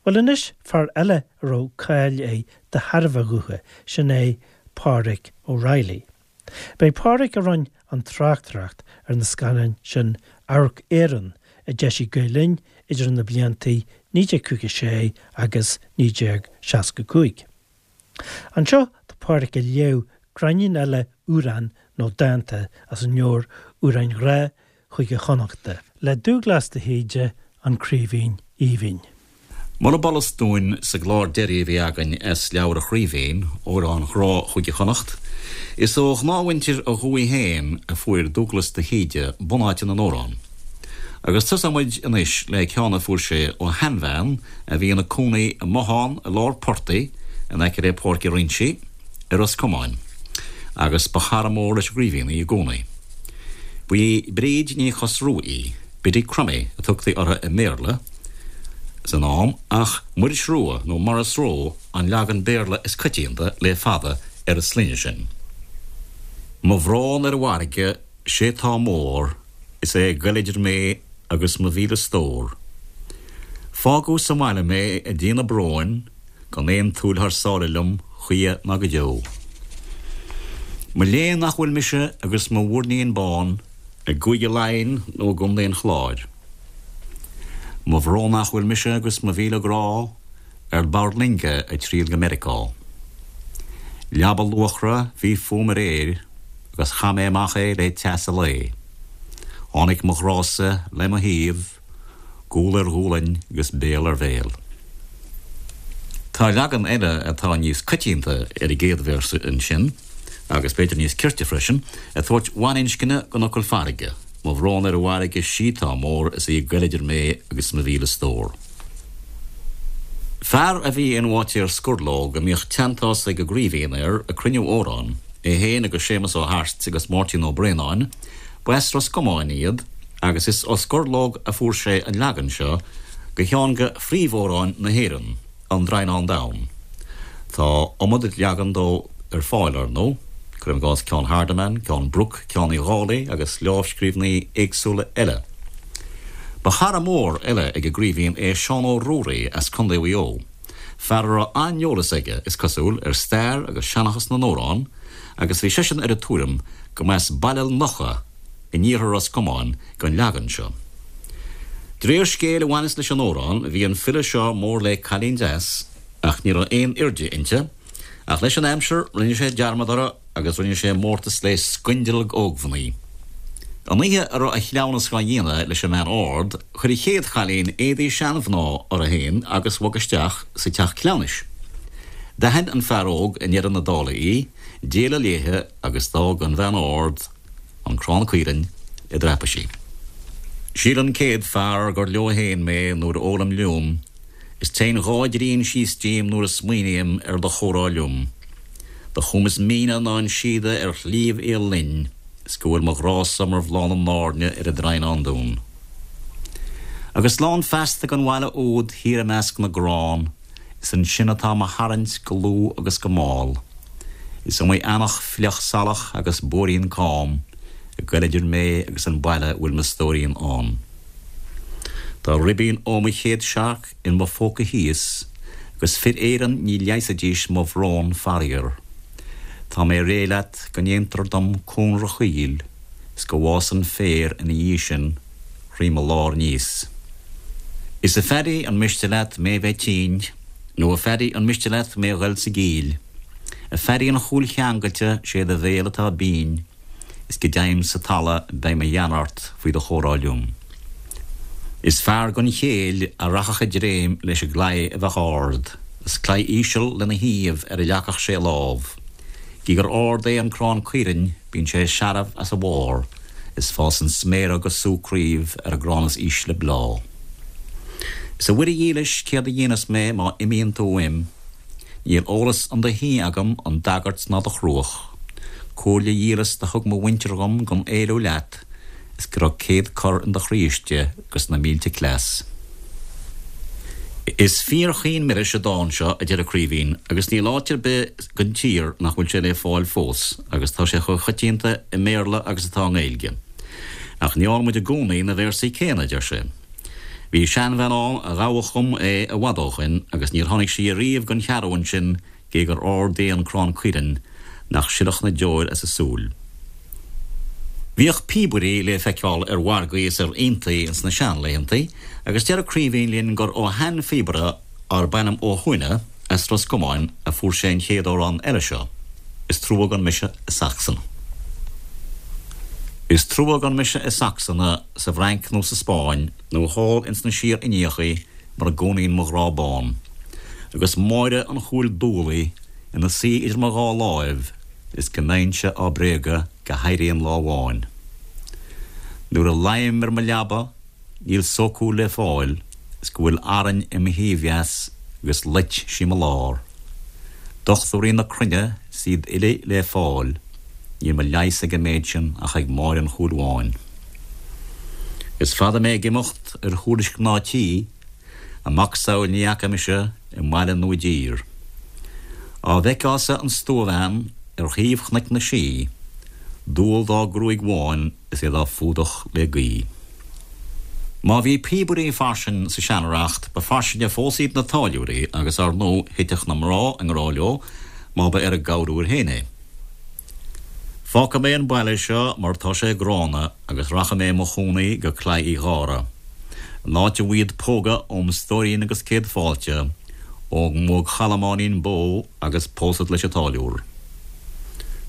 Bhuel anois, fear eile a raibh cáil air de thairbhe a ghutha, sin é Pádraic O'Reilly. B'é Pádraic a rinne an tráchtaireacht ar na scannáin sin Amharc Éireann a d'eisigh Gael Linn idir na blianta 1956 agus 1965. Anseo tá Pádraic ag léamh gráinnín eile amhrán nó dánta as an leabhar Amhráin Ghrá Chúige Chonnachta le Dúglas de hÍde, An Craoibhín Aoibhinn. Murab fhollas dúinn sa gclár deiridh a bhí againn as leabhar an Chraoibhín, Amhráin Ghrá Chúige Chonnacht, is ó ghnáthmhuintir a dhúiche féin a fuair Dúglas de hÍde bunáite na n-amhrán. Agus tosóidh muid anois le ceann a fuair sé ó sheanbhean a bhí ina cónaí i mbothán i lár portaigh in aice le Páirc an Rincí i Ros Comáin, agus ba chara mór leis an gCraoibhín í i gcónaí. Ba í Bríd Ní Chosrúith í. Biddy Crummey a tugtaí uirthi i mBéarla san am, ach Muiris Rua nó Maurice Roe an leagan Béarla is coitianta le fada ar an sloinne sin. Mo bhrón ar an bhfarraige 'sé tá mór, is é ag goil idir mé agus mo mhíle stór. Fágadh sa mbaile mé ag déanamh bróin, gan aon tsúil thar sáile liom choíche ná go deo. Mo léan nach bhfuil mise agus mo mhuirnín bán, I gCúige Laighean nó i gContae an Chláir. Mo bhrón nach bhfuil mise agus mo mhíle grá ar bord loinge ag triall go Meiriceá. Leaba luachra bhí fúm aréir agus chaith mé amach é le teas a lae. Tháinig mo ghrása le mo thaobh, gual ar ghualainn agus béal ar bhéal. Tá leagan eile atá níos coitianta ar an gcéad véarsa ansin, agus b'fhéidir níos cirte freisin, ag tabhairt bhaininscne don fhocal farraige, Mo bhrón ar an bhfarraige 'sí tá mór is í ag goil idir mé agus mo mhíle stór. Fear a bhí in Bháitéar Scurlóg a mbíodh teanntás ag an gCraoibhín air ag cruinniú amhrán, é féin agus Séamus Ó hAirt agus Máirtín Ó Braonáin, Ba as Ros Comáin iad agus is ó Scurlóg a fuair sé an leagan seo de cheann de phríomhamhráin na hÉireann, An Draighneán Donn. Tá iomad leagan dó ar fáil, ar ndóigh, cuirim i gcás ceann Hardiman, ceann Brooke, ceann Uí Dhálaigh agus lámhscríbhinní éagsúla eile. Ba chara mór eile ag an gCraoibhín é Seán Ó Ruairí as Contae Mhaigh Eo, fear a raibh an-eolas aige, is cosúil, ar stair agus seanchas na n-amhrán, agus bhí seisean ar an tuairim go mba as Baile Locha in iarthar Ros Comáin don leagan seo. De réir scéil a bhaineas leis an amhrán, bhí an file seo mór le cailín deas ach ní raibh aon airde inti, ach leis an aimsir rinne sé dearmad uirthi agus rinne sé mórtas le scoindealg ógmhnaoi. An oíche a raibh a chleamhnas dhá dhéanamh leis an mbean ard, chuir an chéad chailín éadaí seanmhná uirthi féin agus bhog isteach sa teach cleamhnais. D'aithin an fear óg i ndeireadh na dála í, d'éalaigh léithe agus d'fhág an bhean ard an crann caoirinn i dtraipisí. Síleann 100 fear gur leo fhéin mé nuair a ólaim liúm, is téann dhá dtrian síos díom nuair a smaoiním ar do chomhrá liom. Do chum is míne ná an síoda ar Shliabh Fhiodh Linn, is go bhfuil mo ghrá-sa mar bhláth na n-airne ar an Draighneán Donn. Agus slán feasta gon bhaile úd thiar i measc na gcrann, Is ansin atá mo tharraingt go luath agus go mall. Is iomaí eanach fliuch salach agus bóithrín cam ag goil idir mé agus an baile a bhfuil mo stóirín ann. Tá ribín ó mo chéad searc in mo phóca thíos agus fir Éireann ní leigheasfaidís mo bhrón faraor. Tá mé réidh leat go ndéantar dom cónra choill is go bhfásann féar ina dhiaidh sin thrí mo lár aníos. Is a Phaddy an miste leat mé bheith tinn, nó a Phaddy an miste leat mé ghoil sa gcill? A Phaddy an chúil cheangailte sé do bhéal atá binn, is go deimhin sa talamh beidh mo ghean ort faoi do chomhrá liom. Is fear gan chéill a rachadh i dtréim leis an gclaí a bheadh ard, is claí íseal lena thaobh ar a leagfadh sé a lámh. Gidh gur ard é an crann caoirinn bíonn sé searbh as a bharr, is fásann sméara agus sú craobh ar an gcrann is ísle bláth. Is a Mhuire dhílis céard a dhéanfas mé má imíonn tú uaim? Níl eolas 'un do thí agam 'un d'agairt ná do chruach. Comhairle dhílis do thug mo mhuintir dhom gan éalú leat is go raibh céad cor in do chroí istigh 'gus na mílte cleas. Is fíor-chaoin milis an dán seo, a deir an Craoibhín, agus níl áit ar bith den tír nach bhfuil sé le fáil fós, agus tá sé chomh coitianta i mBéarla agus atá i nGaeilge. Ach ní fhághann muid i gcónaí na véarsaí céanna, a deir sé. Bhí seanbhean ann a ghabhadh dhom é i bhfad ó shoin agus níor tháinig sí ariamh gon cheathrúin sin gé gur ard é an crann caoirinn nach silfeadh na deoir as a súil. Bhíodh píobairí le feiceáil ar mhargaí is ar aontaí ins na seanlaethantaí agus deir Craoibhín linn gur ó sheanphíobaire arb ainm Ó hUaithne as Ros Comáin a fuair sé an chéad amhrán eile seo, Is trua gan mise i Sacsan. Is trua gan mise i Sacsana, sa bhFrainc nó sa Spáinn, nó thall ins na Síor-Indiachaí mar a gcónaíonn mo ghrá bán, agus Máire an Chúil Dúlaigh ina suí idir mo dhá láimh is go mbeinnse á bréagadh go héiríonn lá amháin. Nuair a luím ar mo leaba níl sócúl le fáil is go bhfuil Arainn i mo thaobh dheas agus loit sí mo lár. Dochtúirí na cruinne 's iad uilig le fáil, níl mo leigheas ag an méid sin ach ag Máire an Chúil Bháin. Is fada mé ag imeacht ar thuairisc mná tí, a macasamhail ní fhaca mise i mbaile nó i dtír. Á bhfeiceá-sa an stuabhean ar thaobh Chnoic na Sí, dual dá gruaig bhán is é dá fuadach le gaoith. Má bhí píobairí fairsing sa seanreacht, ba fairsinge fós iad na táilliúirí agus, ár ndóigh, thiteadh na mná i ngrá leo má ba ar a gcorruair féin é. Fágfaidh mé an baile seo mar tá sé gránna agus rachaidh mé i mo chónaí go Claí Uí Ghadhra, an áit a bhfuighid póga óm stóirín agus céad fáilte ó mo chalamáinín bó agus pósad leis an táilliúr.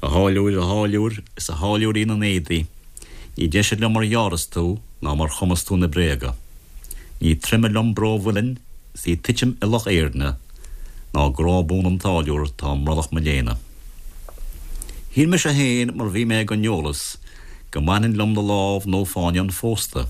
A tháilliúir, a tháilliúir, is a tháilliúirín an éadaigh, ní deise liom mar gheárras tú ná mar chumas tú na bréaga. Ní troime liom bró mhuilinn 's í titim i Loch Éirne ná grá buan an táilliúir 'tá i mbrollach mo léine. Shíl mise féin mar bhí mé gan eolas go mbainfinn liom do lámh nó fáinne an phósta,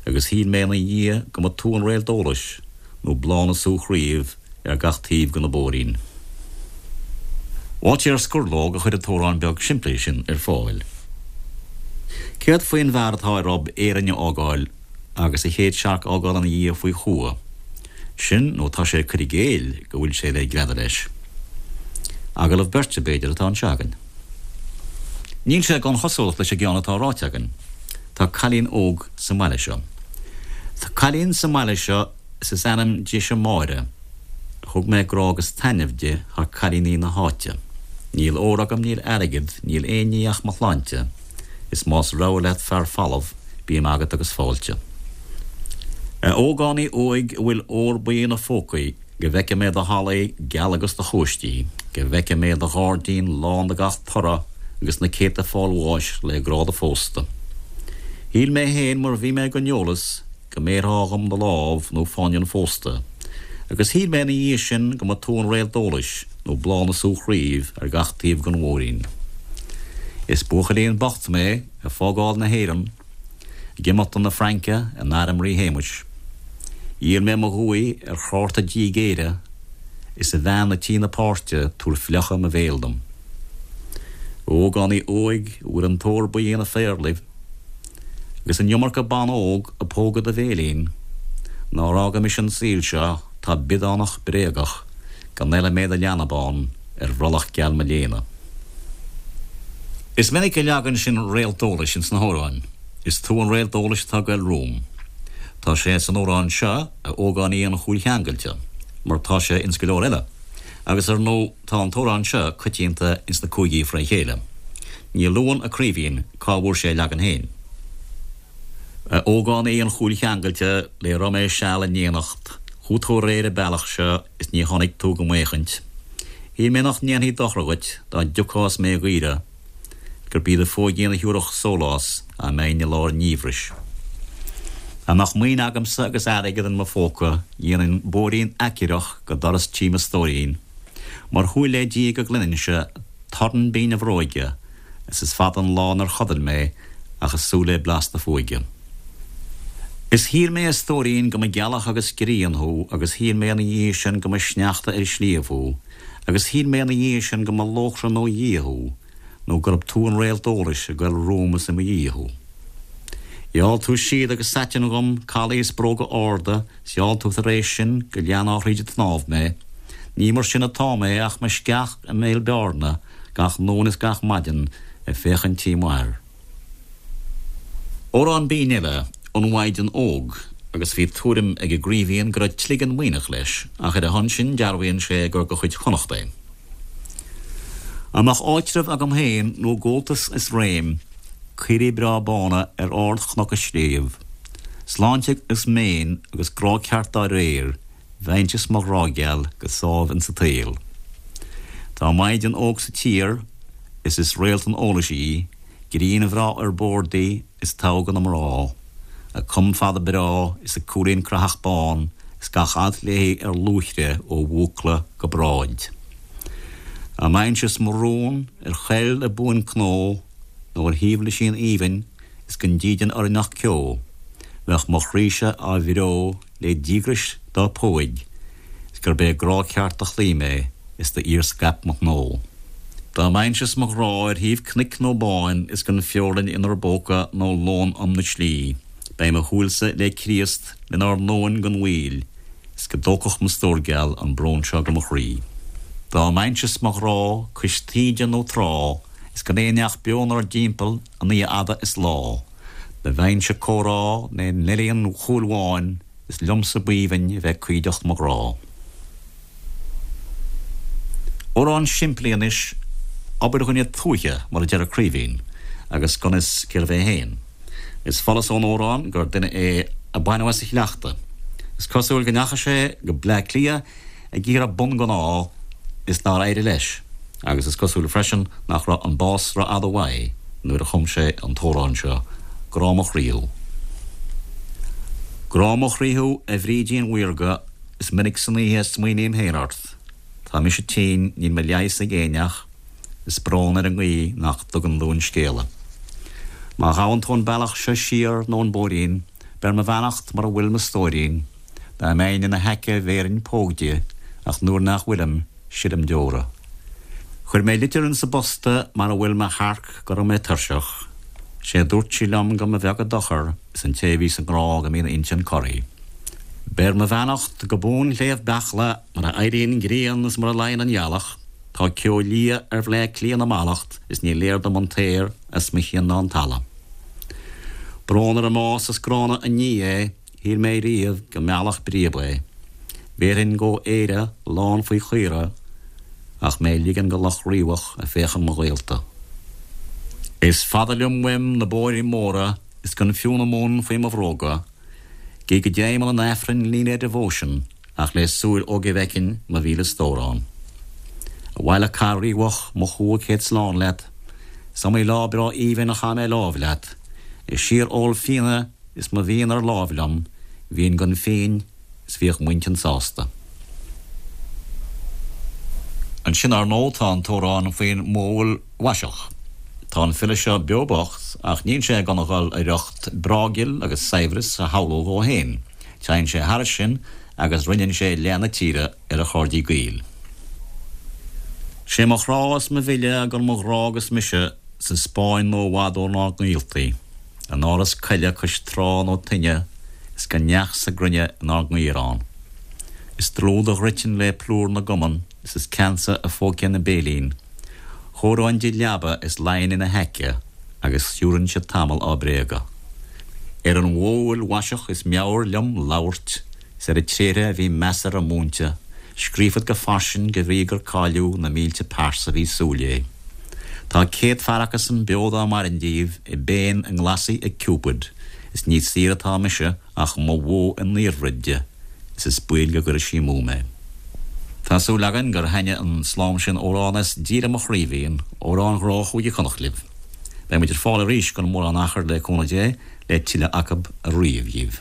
agus shíl mé ina dhiaidh go mba tú an réalt eolais nó bláth na sú chraoibh ar gach taobh de na bóithrín. Bháitéar Scurlóg a chuir an t-amhrán beag simplí sin ar fáil. Céard faoin bhfear atá ar ob Éirinn a fhágáil agus a chéad searc a fhágáil ina dhiaidh faoi chumha? Sin nó tá sé ag cur i gcéill go bhfuil sé le greadadh leis. Agallamh beirte, b'fhéidir, atá anseo againn. Níl sé gan chosúlacht leis an gceann atá ráite againn. Tá cailín óg sa mbaile seo. Tá cailín sa mbaile seo is is ainm dise Máire. Thug mé grá agus taitneamh di thar cailíní na háite. Níl ór agam, níl airgead, níl aon ní ach mo shláinte, is más rogha leat fear folamh, bím agat agus fáilte. A ógánaigh óig a bhfuil ór buí ina phócaí, go bhfeice mé do hallaí geala agus do chóistí, go bhfeice mé do ghairdín lán de gach toradh agus na céadta fáil bháis le grá do phósta. Shíl mé féin mar bhí mé gan eolas go mbéarfá dhom do lámh nó fáinne an phósta, agus shíl mé ina dhiaidh sin go mba tú an réalt eolais nó bláth na sú chraoibh ar gach taobh den mhúirín. Is buachaillín bocht mé ag fágáil na hÉireann, ag imeacht chun na Fraince in airm Rí Shéamuis. Dhíol mé mo dhúthaigh ar chárta díg Éire, is a bhean a' tí na páirte tabhair fliuchadh mo bhéil dom. A ógánaigh óig a bhfuil an t-ór buí ina phéarlaibh, agus an iomarca ban óg ag pógadh do bhéilín, nár fhága mise an saol seo 'tá biodánach bréagach go n-eile mé do leanbán ar bhrollach geal mo léine. Is minic a leagann sin réalt eolais ins na hamhráin. Is tú an réalt eolais atá ag goil romham. Tá sé san amhrán seo, a ógánaigh an chúil cheangailte, mar tá sé ins go leor eile. Agus ar ndóigh tá an t-amhrán seo coitianta ins na cúigí fré chéile. Ní luann a Craoibhín cá bhfuair sé a leagan féin. A ógánaigh an chúil cheangailte le raibh mé seal in éineacht, chuaigh tú aréir an bealach seo is ní tháinig tú go m'fhéachaint. Shíl mé nach ndéanfaí dochar dhuit dá dtiocfá is mé a dh'iarraidh, gurb í do phóigín a thiúrfadh sólás dá mbeinn i lár an fhiabhrais. Dá mbeadh maoin agamsa agus airgead in mo phóca dhéanfainn bóithrín aicearrach go doras tí mo stóirín, mar shúil le Dia go gcluininnse torann binn a bhróige is is fada an lá nár chodail mé ach ag súil le blas do phóige. Is shíl mé a stóirín go mba gealach agus grian thú agus shíl mé ina dhiaidh sin go mba sneachta ar shliabh thú agus shíl mé ina dhiaidh sin go mba lóchrann ó Dhia thú nó gurb tú an réalt eolais ag goil romham is i mo dhiaidh thú. Gheall tú síoda agus saitean dhom, calaí is bróga arda, 's gheall tú tar éis sin go leanfá thríd an tsnámh mé. Ní mar sin atá mé ach mo sceach i mbéal bearna gach nóin is gach maidin ag féachaint tí m'athar. Amhrán binn eile, An Mhaighdean Óg. agus bhí tuairim ag an gCraoibhín go raibh cloigeann Muimhneach leis, ach ar a shon sin dearbhaíonn sé gur de chuid Chonnacht é. Dá mbeadh áitreabh agam féin nó gabháltas is réim, caoirigh breá bána ar ard-chnoc is sliabh, sláinte is méin agus grá ceart dá réir, bheinnse is mo ghrá geal go sámh insa tsaol. Tá maighdean óg sa tír is is réalt an eolais í, grian bhreá ar bord di is togha de na mná, a com fada breá is a cúilín creathach bán is gach alt léi ar luaithre ó bhúcla go bráid. Dá mbeinnse is mo rún ar choill i buain-chnó nó ar thaobh lisín aoibhinn is gan dídean orainn ach ceo, bheadh mo chroí-se á bhreo le díograis dá póig is gurb é grá ceart do chloígh mé is d'iarscaip mo ghnó. Dá mbeinnse is mo ghrá ar thaobh cnoic nó báin is gan feorainn inár bpóca nó lón um na slí, beidh mo shúilse le Críost lenár ndomhan gan mhoill is go dtógfadh mo stór geal an brón seo go mo chroí. Dá mbeinnse is mo ghrá cois taoide nó trá is gan aon neach beo 'nár dtimpeall an oíche fhada is lá, Do bheinnse ag comhrá le Neilí an Chúil Bháin is liomsa b'aoibhinn a bheith cuideacht mo ghrá. Amhrán simplí anois, obair dhuine tuaithe mar a deir an Craoibhín, agus gan fhios cérbh é féin. Is follas ón amhrán gur duine é a baineadh as a shleachta. Is cosúil go ndeachaigh sé go Bleá Cliath ag iarraidh bun gan ádh is nár éirigh leis, agus is cosúil freisin nach raibh an bás rófhada uaidh nuair a chum sé an t-amhrán seo, Grá mo chroí thú. Grá mo chroí thú, a Bhrídín mhaorga, is minic san oíche a smaoiním féin ort. Tá mise tinn, níl mo leigheas ag éinneach, is brón ar an ngaoth nach dtugann dúinn scéala. Má ghabhann tú an bealach seo siar nó an bóithrín, beir mo bheannacht mura bhfuil mo stóirín. Dá mbeinn ina haice bhéarfainn póg di, ach nuair nach bhfuilim, silim deora. Chuir mé litir insa bposta mar a bhfuil mo shearc go raibh mé tuirseach. Sé a dúirt sí liom go mba bheag a dochar is an té a bhíos i ngrá go mbíonn a intinn corraithe. Beir mo bheannacht go bun Shliabh Beachla mar a éiríonn an ghrian is mar a luíonn an ghealach. Tá ceo liath ar Bhleá Cliath na mallacht is ní léir dom an t-aer as mo chionn ná an talamh. Brón ar an mbás is gránna an ní é Shíl mé riamh go meallfadh bríob é. Bhéarfainn go Éire lán faoi chaora ach mé ligean go Loch Riabhach a féachann mo ghaolta. Is fada liom uaim na bóithrí móra is gan fiú na mún faoi mo bhróga. Gidh go dtéim 'un an Aifrinn líne devotion ach le súil óige bhfeicfinn mo mhíle stór ann. Abhaile Cath Riabhach mo chumha céad slán leat. Is iomaí lá breá aoibhinn a chaith mé láimh leat. Ag síor-ól fíona Is mo mhian ar láimh liom, bhínn gan phínn is bhíodh m'intinn sásta. Ansin, ar ndóigh, tá an t-amhrán faoin mbuabhaill mhaiseach. Tá an file seo beo bocht, ach níl sé ag dul a riocht breá-ghil agus saibhreas a shamhlú dhó féin. Téann sé thairis sin agus roinneann sé leath na tíre ar a chairde gaoil. Sé mo chrá is mo mhilleadh gan mo ghrá agus mise sa Spáinn nó i bhfad ónár ngaoltaí. In áras coille cois trá nó toinne is gan neach sa gcruinne inár ngaorán. Is dlúth do dhruitim le plúr na gcumann is is ceansa a phóigfinn a béilín. Chóireoinn di leaba is luífinn ina haice agus shiúrfainnse tamall á bréagadh. Ar an bhuabhaill mhaiseach is meabhair liom labhairt is ar a tréithre a bhí measartha múinte, scríobhfad go fairsing de bhrí gur cailleadh na mílte pearsa bhí súil léi. Tá céadfear acusan beo dá mairinn díobh i bpéin a nglasaí ag Cupid is ní saoire atá mise ach mo bhó i ndaorbhroid di is is baol go gcuirfidh sí amú mé. Tá súil againn gur thaitnigh an slám sin amhrán as Díolaim an Chraoibhín, amhráin ghrá Chúige Chonnacht libh. Beidh muid ar fáil arís gan mórán achair le cúnamh Dé le tuilleadh acu a ríomh dhíbh.